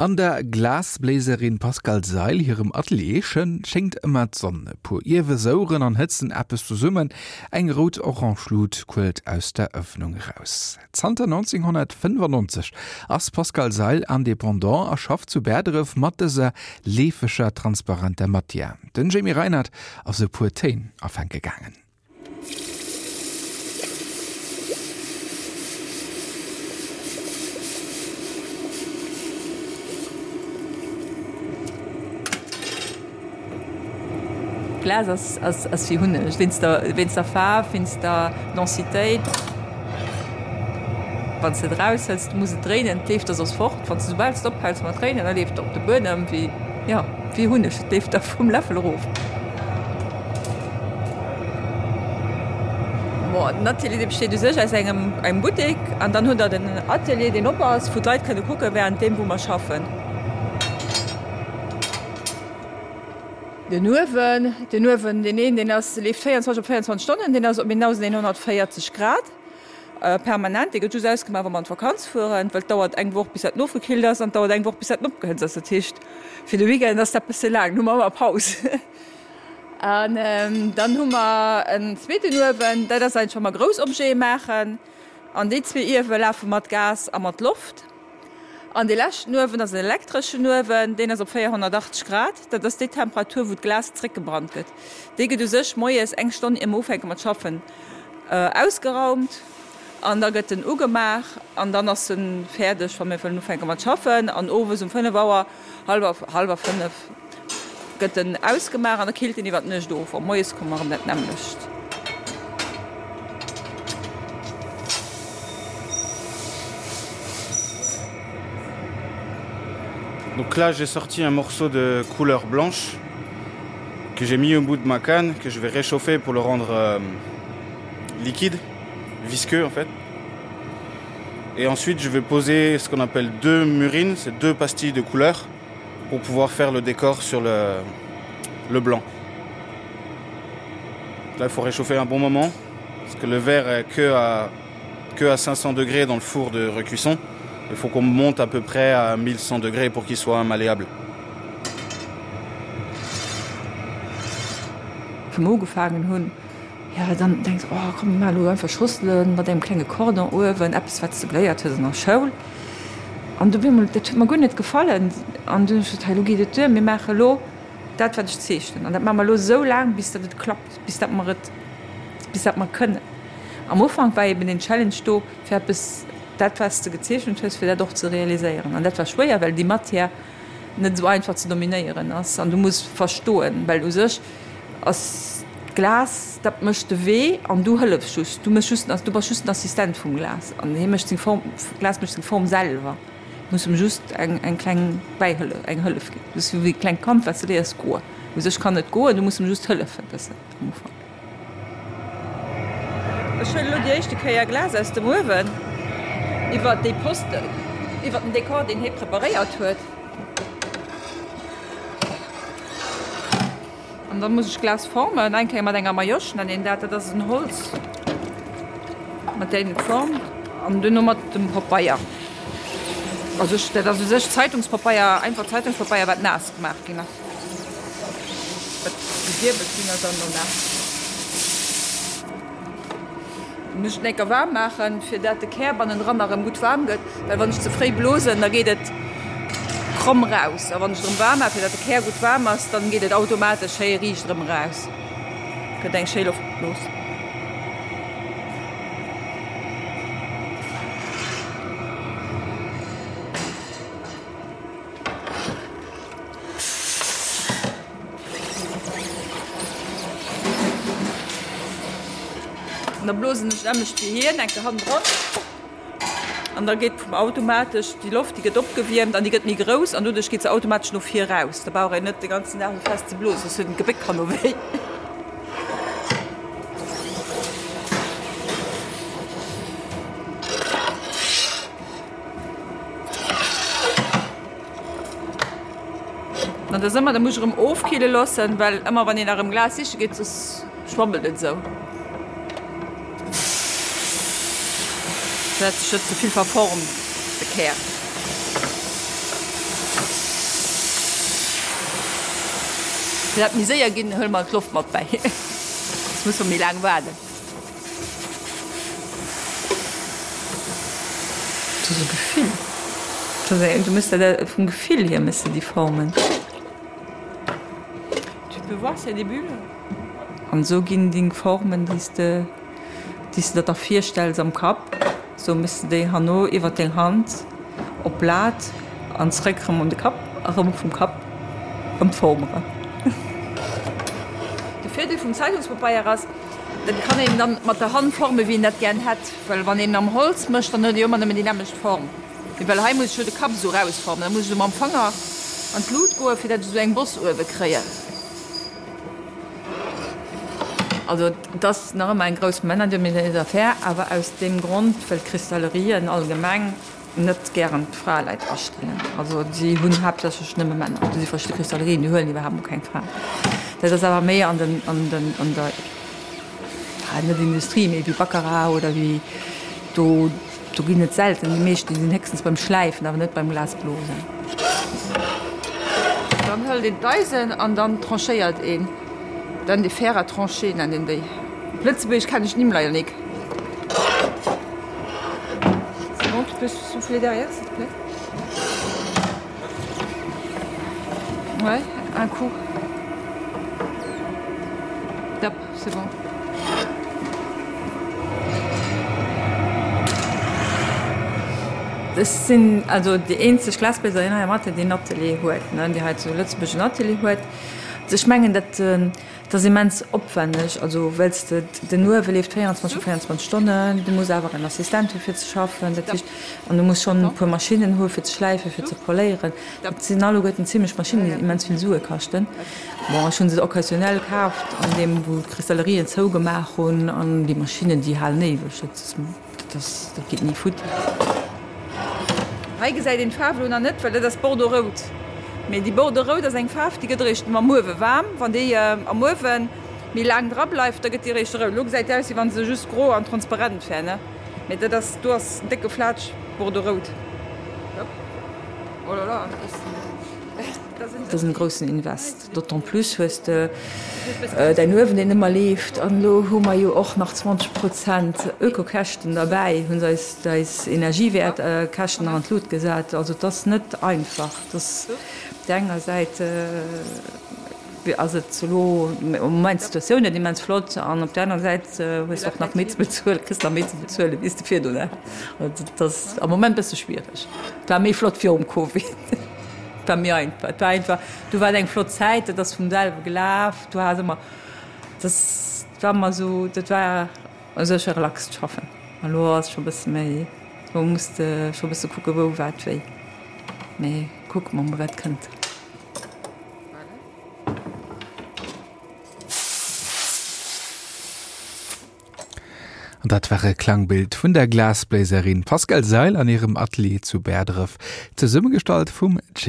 An der Glasbléiserin Pascale Seil hirem Atelier schéngt ëmmer d'Sonn. E puer Iewe soueren an hëtzen eppes zesummen, eng rout-orange Lut quëllt aus der Ëffnung eraus. Zanter 1995 ass d'Pascale Seil Indépendant a schafft zu Bäerdref mat dëser leefeger, transparenter Matière. Den Jamie Reinert ass e puer Téin afänke gaangen. Glas ass ass ass wéi Hunneg, wéinst der wéinst der Faarf, wéinst der Densitéit. Wann s de et eraushëls, du muss et dréinen, et leeft der soss fort. Wann s de soubal s de ophäls mat dréinen, da leeft et op de Buedem wéi, jo, wéi Hunneg, et leeft der vum Läffel erof. Bon, den Atelier dee besteet u sech aus engem engem Buttek an dann hutt der den Atelier deen op ass, wou d'Leit kënne kucke während deem wou mer schaffen. Den Uewen, den Uewen deen een deen ass leeft 24 op 24 Stonnen, deen ass op 1140 Grad permanent. Dee gëtt just ausgemaach wa mer an d'Vakanz fueren, well et dauert eng Woch bis dat nofgekillt ass an et dauert eng Woch bis dat opgehëtzt ass. Dat heescht fir de Weekend ass dat bësse laang, do hu mer ëmmer Paus. An dann hu mer en zweeten Uewen, dat ass eigentlech wa mer grouss Objete maachen. An déi zwee Iewe lafe mat Gas a mat Loft. An dee leschten Uewen ass en elektreschen Uewen, deen ass op 480 Grad. Dat ass déi Temperatur, wou d'Glas zréckgebrannt gëtt. Dee gëtt u sech moies eng Stonn ier mer ufänke mat schaffen ausgeraumt an da gëtt en ugemaach an dann ass e fäerdeg, wa mir wëllen ufänke mat schaffen. An owes um 5 Auer, hallwer, hallwer 5, Gëtt en ausgemaach an da killt en iwwer d'Nuecht of. A moies komme mer erëm dat nämmlecht. Donc là j'ai sorti un morceau de couleur blanche que j'ai mis au bout de ma canne que je vais réchauffer pour le rendre euh, liquide, visqueux en fait. Et ensuite je vais poser ce qu'on appelle deux murines, c'est deux pastilles de couleur pour pouvoir faire le décor sur le, le blanc. Là il faut réchauffer un bon moment parce que le verre est que à, que à 500 degrés dans le four de recuisson. Il faut qu'on monte à peu près à 1100 degrés pour qu'il soit malléable. Wou mer ugefaangen hunn, jo dann denks oh komm mir maache lo einfach Schosselen mat engem klenge Cordon uewen, eppes wat s de geléiert hues an der Schoul. An du op eemol, dat huet mer guer net gefallen. An dunn hu ech gesot, hei elo geet et duer, mir maache elo dat wat ech zeechnen an dat maache mer elo esou laang bis datt et klappt, bis datt mer et, bis datt mer kënnen. Am Ufank war eben den Challenge do fir eppes, dat wat s de gezeechent hues, fir dat och ze realiséieren. An dat war schwéier, well déi Matière net esou einfach ze dominéieren ass an du muss verstoen, well u sech ass d'Glas, dat mécht de Wee an du hëllefs just, du méchs just, du bass just den Assistent vum Glas an hie mécht seng Form, d'Glas mécht seng Form selwer, du muss em just eng eng kleng Bäihëllef, eng Hëllef ginn. Du ass wéi e klengt Kand wat s de léiers goen, u sech kann et goen, du muss em just hëllefen e bëssen am Ufank. Ech huelen elo déi éischte Kéier Glas aus dem Uewen iwwer déi Posten, iwwer den Dekor, deen hie preparéiert huet. An da muss ech Glas formen, eng Kéier mat enger Majosch nennt een dat, dat ass en Holz, mat där een et formt, an duerno mat dem Papeier. Also dat ass u sech Zeitungspapeier, einfach Zeitungspapeier, wat naass gemaach ginn ass. Wat gewierbelt ginn ass an no naass. Muss ech d'Nécker waarm maachen, fir dat de Kär bannendran nach erëm gutt waarm gëtt, well wann ech ze fréi blosen, da geet et kromm raus. A wann ech et erëm waarm maachen, fir dat de Kär gutt waarm ass, dann geet et automatesch schéi riicht erëm eraus, gëtt eng schéi Loftblos. An da blosen ech nämmlecht wéi hien enke hannendran an da geet vum automatesch déi Loft, déi gëtt opgewiermt an déi gëtt méi grouss an doduerch geet se automatesch no vir raus. Da brauch een net de ganzen Dag esou fest ze blosen, soss huet en d'Gebéck herno wéi. An dat ass ëmmer, da muss ech erëm ofkille loossen, well ëmmer wann een nach erëm Glas siche geet, soss schwammelt et esou. Fir dat sech net ze vill verformt, de Kär. Fir dat méi séier ginn, huele mer d'Loft mat bäi. Soss musse mer méi laang waarden. Dat ass e Gefill. Dat ass eng, du muss dat vum Gefill hier méchs de déi Formen. Tu peux voir s'il y a des bulles? An esou ginn deng Formen, déi s de, déi s de der da virstells am Kapp, esou méchs de déi herno iwwer deng Hand op d'Blat an zréck erëm un de Kapp a rëm vum Kapp an d'Form eran. De Virdeel vum Zeitungspapeier ass, dat kann een dann mat der Hand formen, wéi een dat gären hätt, well wann een am Holz mécht, dann huet ee jo ëmmer nëmmen déi nämmlecht Form. Mee well hei muss ech jo de Kapp esou rausformen, da muss ech esou mam Fanger an d'Lut goen, fir dat ech esou eng Boss uewe kréien. Also et ass nach ëmmer eng grouss männerdominéiert Affär, awer aus deem Grond, well d'Cristallerien allgemeng net gären d'Fraeleit astellen. Also si hunn haaptsächlech nëmme Männer. Do si verschidde Cristallerien, déi huelen iwwerhaapt mol keng Fraen. Dat ass awer méi an den, an den, an der, net Industrie, mee wéi Baccarat oder wéi do, do ginn et selten. Déi meescht, déi sinn héchstens beim Schläifen, awer net beim Glasblosen. Dann hëlt een d'Eisen an dann tranchéiert een dann de Fer à trancher nennt een déi. Op Lëtzebuergesch kennen ech d'Nimm leider nik. C'est bon, tu peux souffler derrière s'il te plaît? Ouais, un coup. Top, c'est bon. Ech sinn also déi eenzeg Glasbléiserin hei am Atelier, déi en Atelier huet, ne, déi hei zu Lëtzebuerg en Atelier huet. Ech mengen, dat Dat ass immens opwenneg, also well s de, den Uewe leeft 24 op 24 Stonnen, du muss awer en Assistent hu fir ze schaffen, dat heescht, an du muss schonn e puer Maschinnen hu fir ze schläifen, fir ze poléieren. Dat sinn alleguerten zimlech Maschinnen, déi immens vill Sue kaschten. Bon, ech hu se occasionnel kaaft an deem wou d'Cristallerien zougemaach hunn an déi Maschinnen, déi halen éiweg. Dat ass. Dat ass, dat geet ni futti. Hei gesäit een d'Faarf elo nach net, well dat ass Bordeaux-rout. Mee déi Bordeaux-rout ass eng Faarf, déi gëtt eréischt mam Uewe waarm. Wann déi am Uewe méi laang dra bleift, da gëtt déi eréischt rout. Elo gesäit déi aus, wéi wa se just gro an transparent wär, ne? Mee dat ass, do ass en décke Flatsch Bordeaux-rout. Oh là là, Dat ass en groussen Invest. D'autant plus hues de däin Uewen, deen ëmmer leeft. An elo hu mer jo och nach 20 Prozent Ökokäschten derbäi, hu se eis eis Energiewäertkäschten nach an d'Lut gesat. Also et ass net einfach. Et ass op där enger Säit ass et elo am Moment d'Situatioun net immens flott an op där aner Säit hues de och nach méi ze bezuelen, kriss nach méi ze bezuelen, wéi s de virdrun hat. Also et ass am Moment e bësse schwiereg. Et war méi flott virum Covid. Et war méi einfach. Et war einfach, du war et eng flott Zäit, dat ass vum selwe gelaf, du has ëmmer, dat war ëmmer esou, dat war u sech e relaxt Schaffen. An elo ass scho e bësse méi, elo muss de scho e bësse kucke wou, wat, wéi. Mee kucke mer mol wat kënnt. An dat war e Klangbild vun der Glasbléiserin Pascale Seil an hirem Atelier zu Bäerdref, zesummegestallt vum Jim.